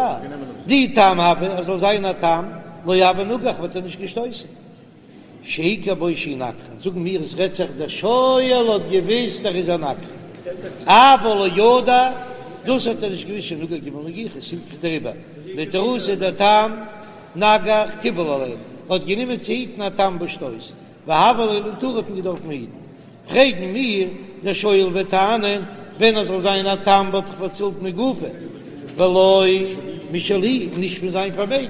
דאי תם הוה ער זאל זיין א תם לא הוה נגח וואלט ער נישט געשטויסן. שהכיר בו שהוא נגחן, זאגן מיר עס רעדט זיך דער שואל האט געוויסט ער איז א נגחן, אבל לא ידע, דאס האט ער נישט געוויסט שנגח ג' נגיחות, דעריבער נטירותא דתם נגח קיבל עליה, האט גענומען צו היטן א תם וואס שטויסט, והוה ליה לנטורי האט מען געדארפן היטן. פרעגן מיר, דער שואל וועט טענה'ן, ווען ער זאל זיין א תם וואלט איך באצאלט מגופו, ולא משלי, נישט פון זיין פארמעגן.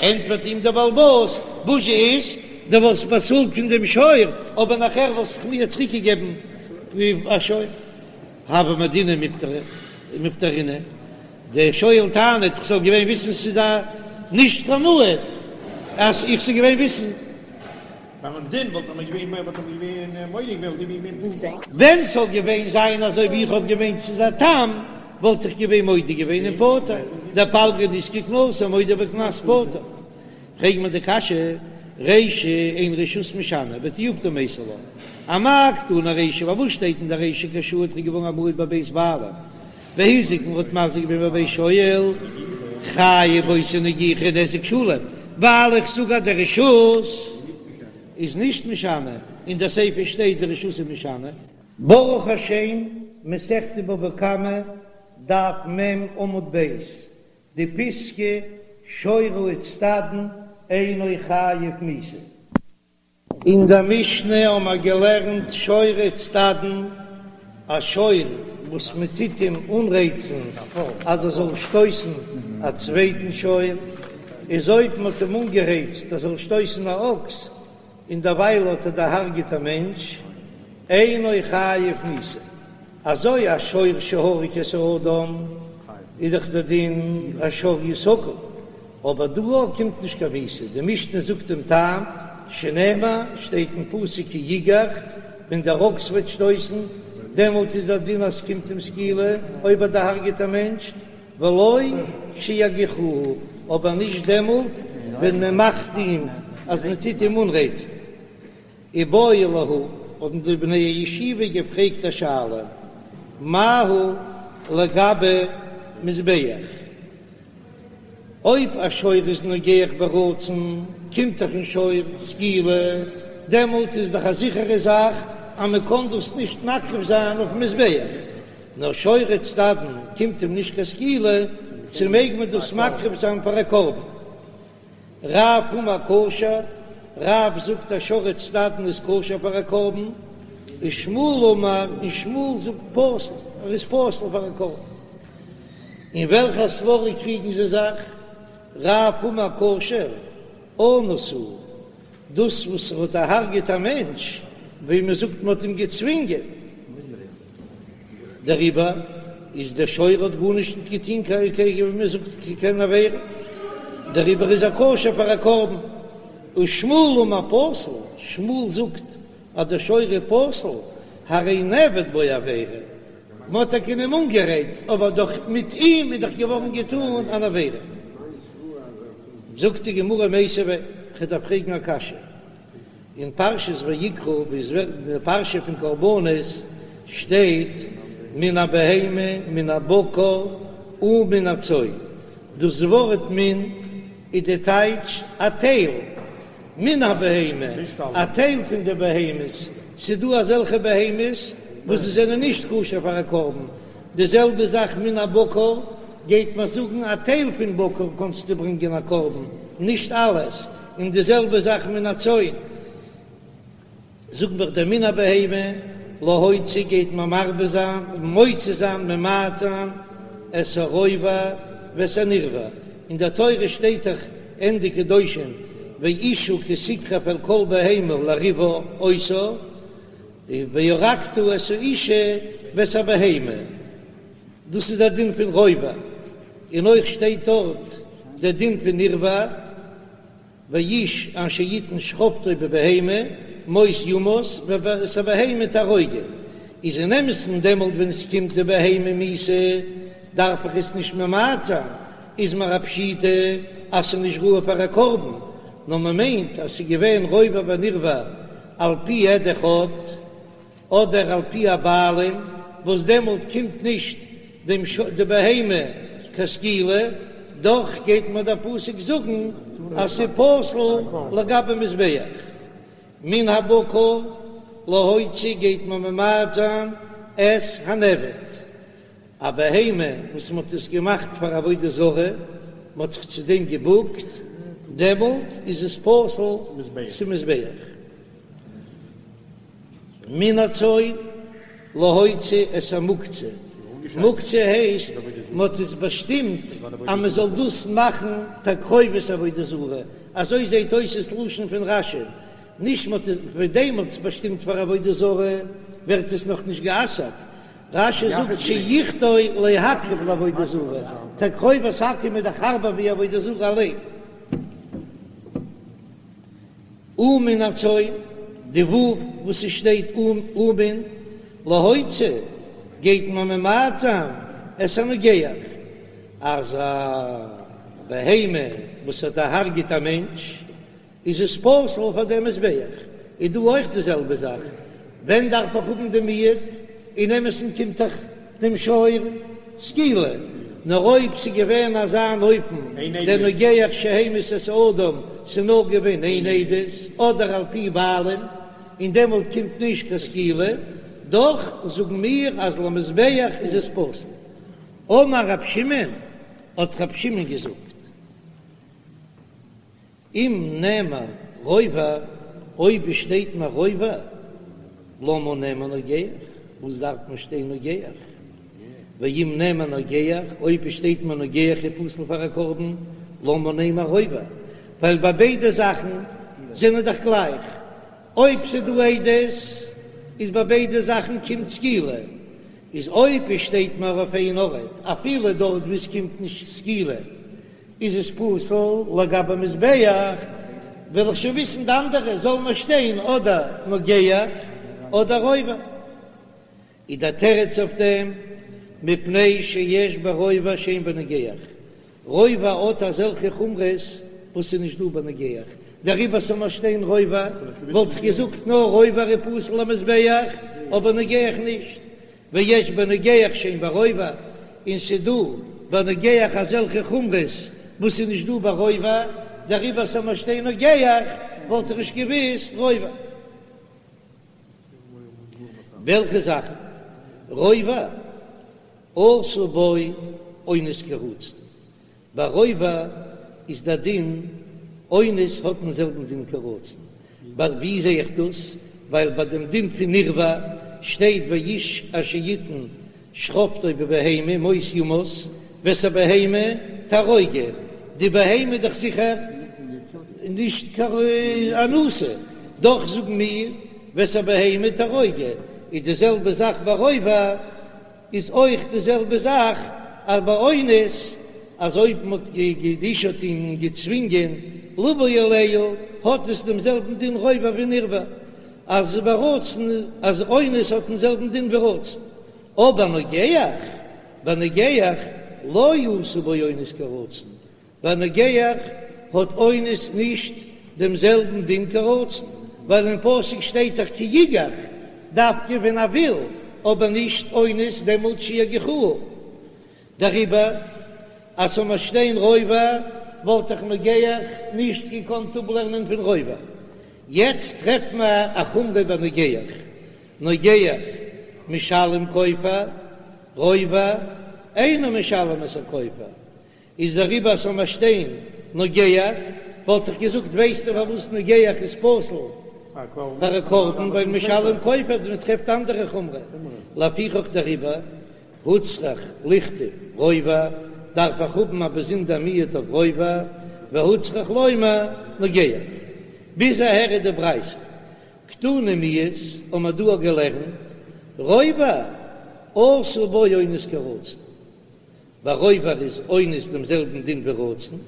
ענטפערט אים דער בעל הבית, וואס איז, דו וואלסט באצאלט פון דעם שור, אבער נאכער וואלסטו מיר צוריקגעגעבן א שור. הוה מודינא ומפטרינא, דער שואל טענה'ט, איך זאל געווען וויסן ס'איז א נישט קיין מועד, אז איך זאל געווען וויסן. ביים דין וואלט ער געווען וואלט ער געווען מודה געווען וואלט געווען פטור. ווען ס'זאל געווען זיין אזוי ווי איך האב געמיינט ס'איז א תם, וואלט איך געווען מודה געווען און פטור, דפלגא נזקא קנסא מודה בקנס פטור. פרעג מיר די קשיא, רישא אין רשות משנה ותיובתא מייתי לה, אמאי קתני רישא, פארוואס שטייט אין די רישא כשהועד ער איז געווארן א מועד בבית בעלים, והזיק און האט מזיק געווען בבית שואל, חייב באותה נגיחה נזק שלם, ווייל איך זאג אז די רשות איז נישט משנה, אין די סיפא שטייט די רשות איז משנה. ברוך השם, מסכת בבא קמא, דף מ עמוד ב', די פיסקא שור האיצטדין אינו חייב מיתה. אין דער משנה האבן מיר געלערנט שור האיצטדין. א שור וואס מען טוט אים אנרייצן אז ער זאל שטויסן א צווייטן שור, איז אויב מען האט אים אנגערייצט ער זאל שטויסן א אקס, און דערווייל האט ער דערהרגעט א מענטש, אינו חייב מיתה. אזוי א שור שהרג את האדם איז דאך דער דין השור יסקל, אבער דא קומט נישט קיין מיתה, די משנה זאגט דעם טעם, שנאמר, שטייט אין פסוק כי יגח, ווען דער אקס וועט שטויסן, דעמאלט איז דער דין אז ס'קומט אים סקילה, אויב ער דערהרגעט א מענטש, ולא כשיגיחוהו, אבער נישט דעמאלט ווען מען מאכט אים אז מען טוט אים אנרייצן. איבעיא להו, האבן די בני הישיבה געפרעגט א שאלה, מהו לגבי מזבח? אויב א שור איז נוגח ברצון, קומט דאך אין שור סקילה, דעמאלט איז דאך א זיכערע זאך אז מען קען דאס נישט מקריב זיין אויפן מזבח, נאר שורי צדדין קומט אים נישט קיין סקילה, צו מעג מען דאס מקריב זיין פאר א קרבן? רב אמר כשר, רב זאגט אז שור צדדין איז כשר פאר א קרבן, ושמואל אמר, און שמואל זאגט פסול, ער איז פסול פאר א קרבן. אין וועלכע סברא קריגן זיי זיך? רב אמר כשר, אנוס הוא, דאס וואס ער האט דערהרגעט א מענטש, ווי מען זאגט מען האט אים געצווינגען, דעריבער איז דער שור האט גארנישט נישט געטון קיין ווי מען זאגט קיין עבירה, דעריבער איז ער כשר פאר א קרבן. ושמואל אמר פסול, שמואל זאגט אז דער שור איז פסול, הרי נעבד בו עבירה, מען האט טאקע אים אנגערייצט, אבער דאך מיט אים איז דאך געווארן געטון אן עבירה. זאגט די גמרא מיתיבי, כ'דארף פרעגן א קשיא, אין פרשת ויקרא ווי עס ווערט אין די פרשה פון קרבנות שטייט מן הבהמה מן הבקר ומן הצאן, דאס ווארט מן איז די טייטש א טייל, מן הבהמה, א טייל פון די בהמות, ס'איז דא אזעלכע בהמות וואס זיי זענען נישט כשר פאר א קרבן, די זעלבע זאך מן הבקר, גייט מען זאגן א טייל פון בקר קענסטו ברענגען א קרבן, נישט אלעס, און די זעלבע זאך מן הצאן, זאגט מיר דער מן הבהמה, להוציא גייט מען מרבה זיין, מוציא זיין, ממעט זיין, את הרובע ואת הנרבע, אין דער תורה שטייט דאך ענדע קדושים ואשה כי תקרב אל כל בהמה לריבה אותה, והרגת את האשה ואת הבהמה, דאס איז דער דין פון רובע, און אויך שטייט דארט דער דין פון נרבע. ואיש אשר יתן שכבתו בבהמה מות יומת ואת הבהמה תהרוגו, איז אין אמת'ן דעמאלט ווען עס קומט די בהמה מיתה דארף איך עס נישט ממעט זיין, איז מיר א פשיטא אז ס'איז נישט ראוי פאר א קרבן, נאר מ'מיינט אז ס'איז געווען רובע ונרבע על פי עד אחד. אדער על פי הבעלים, וואס דעמאלט קומט נישט דעם די בהמה קיין סקילה, דאך גייט מיר דער פסוק זאגן אז ס'איז פסול לגבי מזבח. מן הבקר להוציא גייט מען ממעט זיין את הנעבד, א בהמה וואס מ'האט עס געמאכט פאר עבודה זרה, מ'האט זיך צו דעם געבוקט, דעמאלט איז עס פסול צום מזבח. מן הצאן להוציא את המוקצה, מוקצה הייסט מען האט עס באשטימט אז מען זאל דאס מאכן תקרובת עבודה זרה, אזוי זעט אויס עס לשון פון רש"י, נישט מען האט עס פון דעם מען האט עס באשטימט פאר עבודה זרה ווערט עס נאך נישט גע'אסר'ט, רש"י זאגט שיחדו להקריב לעבודה זרה, תקרובת עכו"ם איז דאך הארבער ווי עבודה זרה אליין. ומן הצאן, די ו' וואס עס שטייט ומן להוציא גייט מען ממעט זיין את הנוגח, אז א בהמה וואס האט דערהרגעט א מענטש איז עס פסול פאר דעם מזבח, איז דא אויך די זעלבע זאך, ווען דארף איך האבן די מיעוט? אין אמת'ן קומט דאך דעם שור סקילה, נאר אויב ס'איז געווען אזא אן אופן דער נוגח שהמית את האדם, ס'איז נאר געווען איין עדות אדער על פי בעלים, און דעמאלט קומט נישט קיין סקילה, דאך זאגן מיר אז למזבח איז עס פסול. אמר רב שמעון, האט רב שמעון געזאגט. אם נאמר רובע, אויב עס שטייט מיר רובע, למה נאמר נוגח? וואס דארף מען שטיין נוגח? ואם נאמר נוגח, אויב עס שטייט מיר נוגח איז פסול פאר א קרבן, למה נאמר רובע? ווייל ביי ביידע זאכן זענען דאך גלייך, אויב ס'איז דא עדות איז ביי ביידע זאכן קומט סקילה, איז אויב עס שטייט מיר אויף איין ארט אפילו דארט וואו עס קומט נישט סקילה איז עס פסול לגבי מזבח, וועל איך שוין וויסן די אנדערע זאל מיר שטיין אדער נוגח אדער רובע. איז דער תירוץ אויף דעם, מפני שיש ברובע שאין בנוגח, רובע האט אזעלכע חומרות וואס איז נישט דא בנוגח, דעריבער ס'זאל נאר שטיין רובע, וואלט איך געזאגט נאר רובע איז פסול למזבח, אבער נוגח נישט, ויש בנוגח שאין ברובע, און ס'איז דא בנוגח אזעלכע חומרות וואס איז נישט דא ברובע, דעריבער ס'זאל נאר שטיין נוגח, וואלט איך נישט געוויסט רובע. וועלכע זאכן? רובע עשה בו אונס כרצון, ביי רובע איז דער דין אונס האט דעם זעלבן דין כרצון, ווי זע איך דאס? ווייל ביי דעם דין פון נרבע שטייט והאיש אשר יתן שכבתו בבהמה מות יומת ואת הבהמה תהרוגו, די בהמה איז דאך זיכער נישט קיין אנוסה, דאך זאגן מיר ואת הבהמה תהרוגו, איז די זעלבע זאך ביי רובע, איז אויך די זעלבע זאך אז ביי אונס, אז אויב מען האט די אשה האט אים געצווינגען לבוא עליה, האט עס דעם זעלבן דין רובע ווי נרבע, אז ברצון אז אונס האט דעם זעלבן דין ווי רצון, אבער נוגח, ביי נוגח לא עשה בו אונס כרצון, ביי נוגח האט אונס נישט דעם זעלבן דין כרצון, ווייל אין פסוק שטייט דאך כי יגח, דווקא ווען ער וויל, אבער נישט אונס דעמאלט שיגיחוה. דעריבער אז ס'זאל מיר שטיין רובע וואלט איך נוגח נישט געקאנט אפלערנען פון רובע. יעצט טרעפט מען א חומרא ביי נוגח, נוגח משלם כופר, רובע אינו משלם את הכופר, איז דעריבער אז ס'זאל מיר שטיין נוגח, וואלט איך געזאגט ווייסטו פארוואס נוגח איז פסול פאר א קרבן, ווייל משלם כופר, מען טרעפט אנדערע חומרא, לפיכך דעריבער הוצרך לכתוב רובע, דארף איך האבן א באזונדער מיעוט אויף רובע, והוצרך לומר נוגח. ביז אהער איז די ברייתא. קתני מיהת, האבן מיר דא געלערנט רובע עשה בו אונס כרצון. ביי רובע איז אונס דעם זעלבן דין ווי רצון.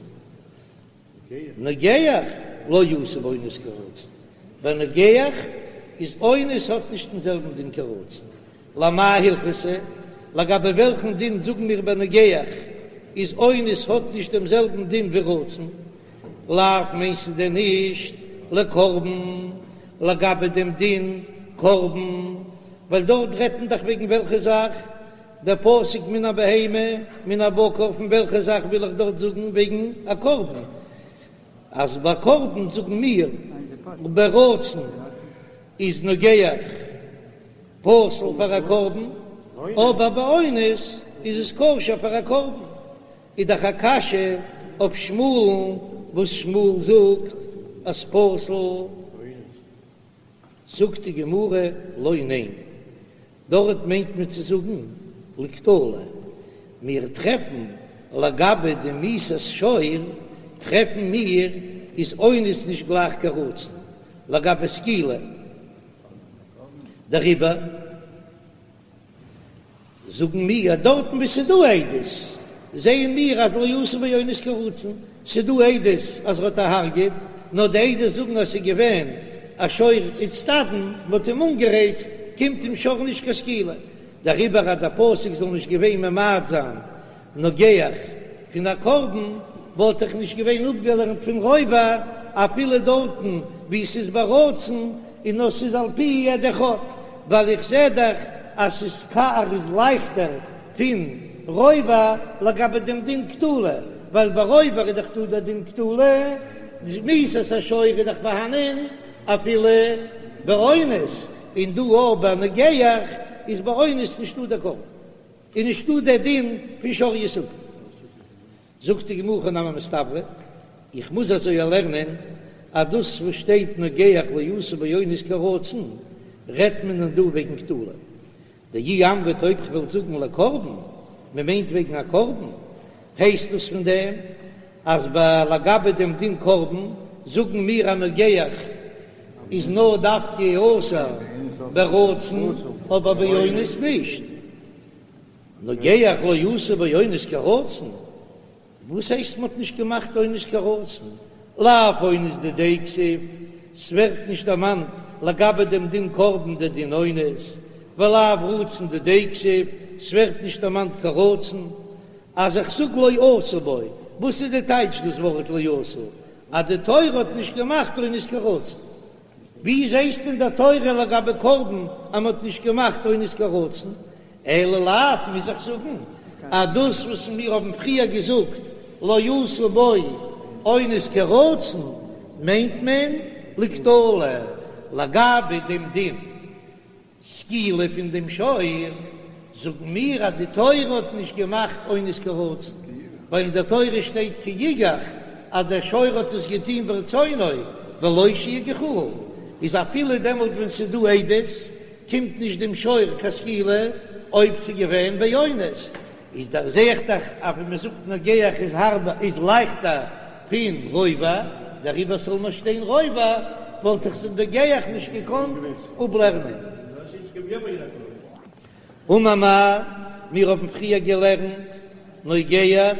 נוגח לא עשה בו אונס כרצון, ביי נוגח איז אונס האט נישט דעם זעלבן דין כרצון, למאי הלכתא, לגבי וועלכן דין זאגן מיר ביי נוגח איז אונס האט נישט דעם זעלבן דין ווי רצון, לאו מיינסטו דען נישט לקרבן, לגבי דעם דין קרבן, ווייל דארט רעדט מען דאך וועגן וועלכע זאך? דער פסוק מן הבהמה מן הבקר פון וועלכע זאך וויל איך דארט זאגן וועגן א קרבן? אז ביי קרבן זאגן מיר ברצון איז נוגח פסול פאר א קרבן, אבער באונס איז עס כשר פאר א קרבן, איז דאך א קשיא אויף שמואל'ן וואס שמואל זאגט אז פסול. זאגט די גמרא לא ניין, דארט מיינט מען צו זאגן לקטלא, מיר טרעפן לגבי די מיתת שור טרעפן מיר איז אונס נישט גלייך כרצון לגבי סקילה, דעריבער. זאגן מיר אז דארטן וואו ס'איז דא עדות, זעען מיר אז לא עשה בו אונס כרצון, ס'איז דא עדות אז ער האט דערהרגעט, נאר די עדות זאגן אז ס'איז געווען א שור איצטדין, מ'האט אים אנגערייצט, קומט אים שור נישט קיין סקילה, דעריבער אז דער פסוק זאל נישט געווען ממעט זיין נוגח פון א קרבן וואלט איך נישט געווען אפגעלערנט פון רובע אפילו דארטן וואו ס'איז ברצון און נאר ס'איז על פי עד אחד, ווייל איך זע דאך אז ס'איז קאר איז לייכטער פון רובע לגבי דעם דין קטלא, ווייל ביי רובע איז דאך דא דער דין קטלא, מיתת השור איז דאך פארהאנען אפילו באונס, און דא אויך ביי נוגח איז באונס נישטא דער קרבן. איז נישטא דער דין פון שור יסקל. זאגט די גמרא הכי נמי מסתברא, איך מוז אזוי לערנען אז דאס וואס שטייט נוגח לא עשה בו אונס כרצון רעדט מען דא וועגן קטלא. דאי אמרת אויב כ'וועל זאגן לקרבן, מ'מיינט וועגן א קרבן, הייסט דאס פון דעם אז ביי לגבי דעם דין קרבן זאגן מיר אז נוגח איז נאר דווקא אסור ברצון אבער באונס נישט, נוגח לא עשו בו אונס כרצון, וואס הייסט מ'האט נישט געמאכט אונס כרצון? לאו אונס דידיה כתיב, ס'ווערט נישט דערמאנט לגבי דעם דין קרבן דער דין אונס, ולאו רצון דידיה כתיב, ס'ווערט נישט דערמאנט כרצון. אז איך זאג לא עשו בו, וואס איז די טייטש דאס ווארט לא עשו? אז די תורה האט נישט געמאכט אונס כרצון. ווי זעסטו אין דער תורה לגבי קרבן אז מ'האט נישט געמאכט אונס כרצון? אלא לאו, מוז איך זאגן אז דאס וואס מיר האבן פריער געזאגט לא עשו בו אונס כרצון מיינט מען לקטלא לגבי דעם דין סקילה פון דעם שור, זאגן מיר אז די תורה האט נישט געמאכט אונס כרצון, ווייל אין דער תורה שטייט כי יגח אז דער שור האט עס געטון ברצונו ולא שיגיחוהו, איז אפילו דעמאלט ווען ס'איז דא עדות קומט נישט דעם שור קיין סקילה אויב ס'איז געווען באונס, איז דאך זעה איך דאך אז ווען מ'זאגט נוגח איז הארבער איז לייכטער פון רובע, דעריבער זאל מען שטיין רובע, וואלט איך זיך נוגח נישט געקאנט אפלערנען. אמר מר, מיר האבן פריער געלערנט נוגח.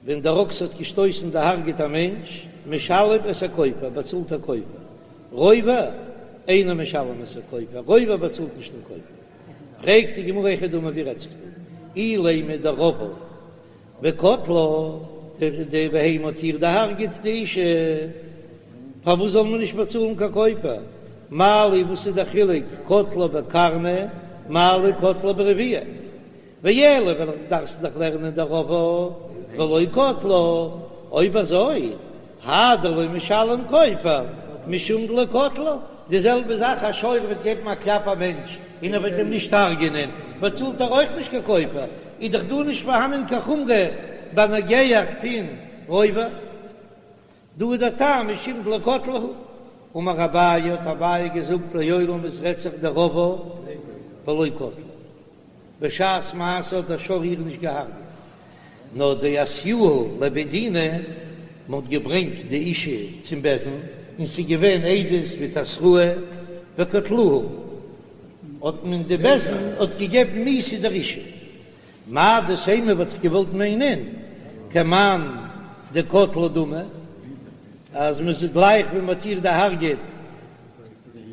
ווען דער אקס האט געשטויסן דערהרגעט א מענטש, משלם את הכופר, באצאלט א כופר. רובע, אינו משלם את הכופר, רובע באצאלט נישט דעם כופר. פרעגט די גמרא היכי דמי ווי רעדט זיך דא? אילימא דרבעה וקטלה, די בהמה האט איר דערהרגעט די אישה, פארוואס זאל מען נישט באצאלן קיין כופר? מה לי וואס איז דער חילוק קטלה בקרנא מה לי קטלה ברביעה? ואלא וועל איך דארפסט דאך לערנען דרבעה ולא קטלה, אויב אזוי האי דלא משלם כופר משום דלא קטלה, די זעלבע זאך א שור וועט געבן א קלאפ א מענטש און ער וועט אים נישט הרג'ענען באצאלט ער אויך נישט קיין כופר, איז דאך דא נישט פארהאנען קיין חומרא ביי נוגח פון רובע. דא איז דער טעם משום דלא קטלה הוא. אמר אביי האט אביי געזאגט לעולם עס רעדט זיך דרבעה ולא קטלה. בשעת מעשה האט דער שור איר נישט געהארגעט, נאר דאתיוה לבי דינא, מען האט געברענגט די אישה צום בית דין, און ס'איז געווען עדות מיט התראה וקטלוה, האט מען די בית דין האט געגעבן מיתה דער אישה. מהו דתימא וואלט איך געוואלט מיינען כמאן דקטלה דמי, אז מען זאגט גלייך ווען מען האט איר דערהרגעט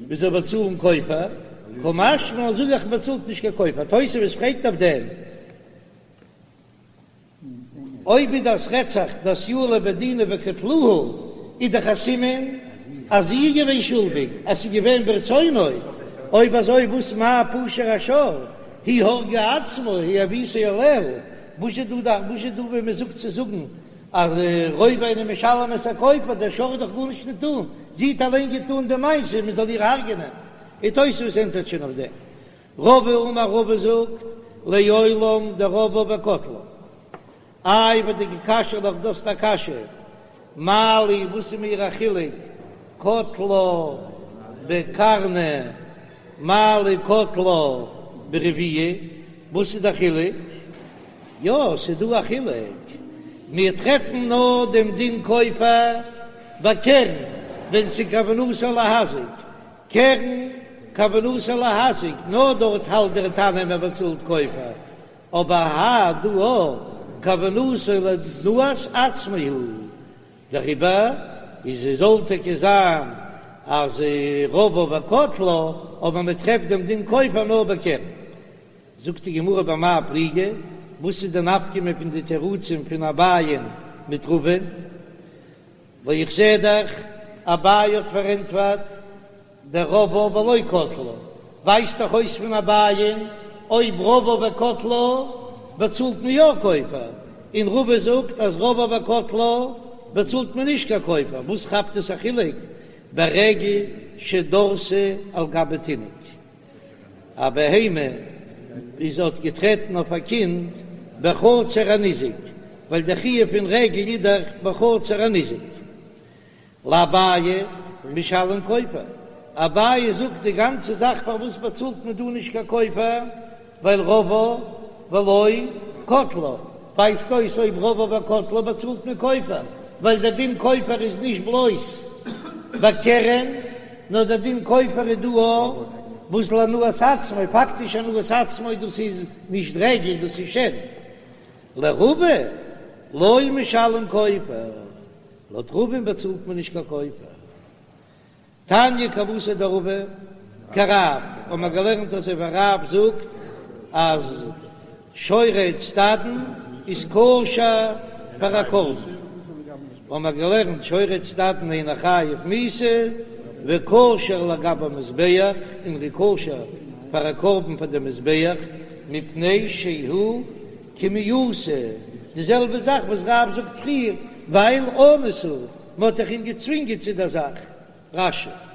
מען זאל באצאלן כופר, קא משמע לן זאג איך מען באצאלט נישט קיין כופר, תוספות פרעגט אויף דעם, אויב איז דאס רעדט זיך דאתיוה לבי דינא וקטלוה איז דאך א סימן אז זי איז געווען שולדיג אז ס'איז געווען ברצונו, אויב אזוי וואס מאי פשע השור היא הרגה עצמה היא הביאתו עליה, וואס איז דא וואס איז דא ווען מען זאגט צו זאגן אז רובע אינו משלם את הכופר, דער שור האט דאך גארנישט געטאן, זי האט אליין געטאן די מעשה מען זאל איר הרג'ענען, און תוספות ענטפערט שוין אויף דעם. רבא אמר רבא זאגט לעולם דרבעה וקטלה. איי ודקא קשיא לך דו האסט א קשיא, מה לי וואס איז מיר א חילוק קטלה בקרנא מה לי קטלה ברביעה, וואס איז די חילוק? יא ס'איז דא א חילוק, מיר טרעפן נאר דעם דין כופר ביי קרן ווען ס'איז כוונתו להזיק, קרן כוונתו להזיק, נאר דארט האלט דער תנא מען באצאלט כופר, אבער האי דא כוונתו להנאת עצמו הוא, דעריבער איז עס זאל טאקע זיין אז רבעה וקטלה, אבער מען טרעפט דעם דין כופר נאר בקרן. זאגט די גמרא במאי פליגי, וואס איז די נפקא מינה פון די תירוצים פון אביי'ן מיט רבא'ן? ווייל איך זע דאך אביי האט פארענטפערט דרבעה ולא קטלה, ווייזט דאך אויס פון אביי'ן אויב רבעה וקטלה באצאלט מען יא כופר, און רבא זאגט אז רבעה וקטלה באצאלט מען נישט קיין כופר, וואס כאפט עס א חילוק ברגל שדרסה על גבי תינוק? א בהמה איז האט געטרעטן אויף א קינד בחצר הניזק, ווייל דער חיוב פון רגל איז דאך בחצר הניזק. לאביי משלם כופר. אביי זאגט די גאנצע זאך פארוואס באצאלט מען דא נישט קיין כופר, ווייל רבעה ולא קטלה, ווייזט אויס אויב רבעה וקטלה באצאלט מען כופר, ווייל דער דין כופר איז נישט בלויז ביי קרן, נאר דער דין כופר איז דא אויך וואס להנאת עצמו, פאקטיש הנאת עצמו דאס איז נישט רגל דאס איז שן. לרבא לא משלם כופר, לויט רבא'ן באצאלט מען נישט קיין כופר. תניא כוותיה דרבא כרב, האבן מיר געלערנט אזוי ווי רב זאגט אז שור האיצטדין איז כשר פאר א קרבן, האבן מיר געלערנט שור האיצטדין אינו חייב מיתה וכשר לגבי מזבח, און ער איז כשר פאר א קרבן פאר די מזבח, מפני שהוא כמעושה, די זעלבע זאך וואס רב זאגט פריער, ווייל אנוס הוא, מען האט דאך אים געצווינגען צו דער זאך. רש"י.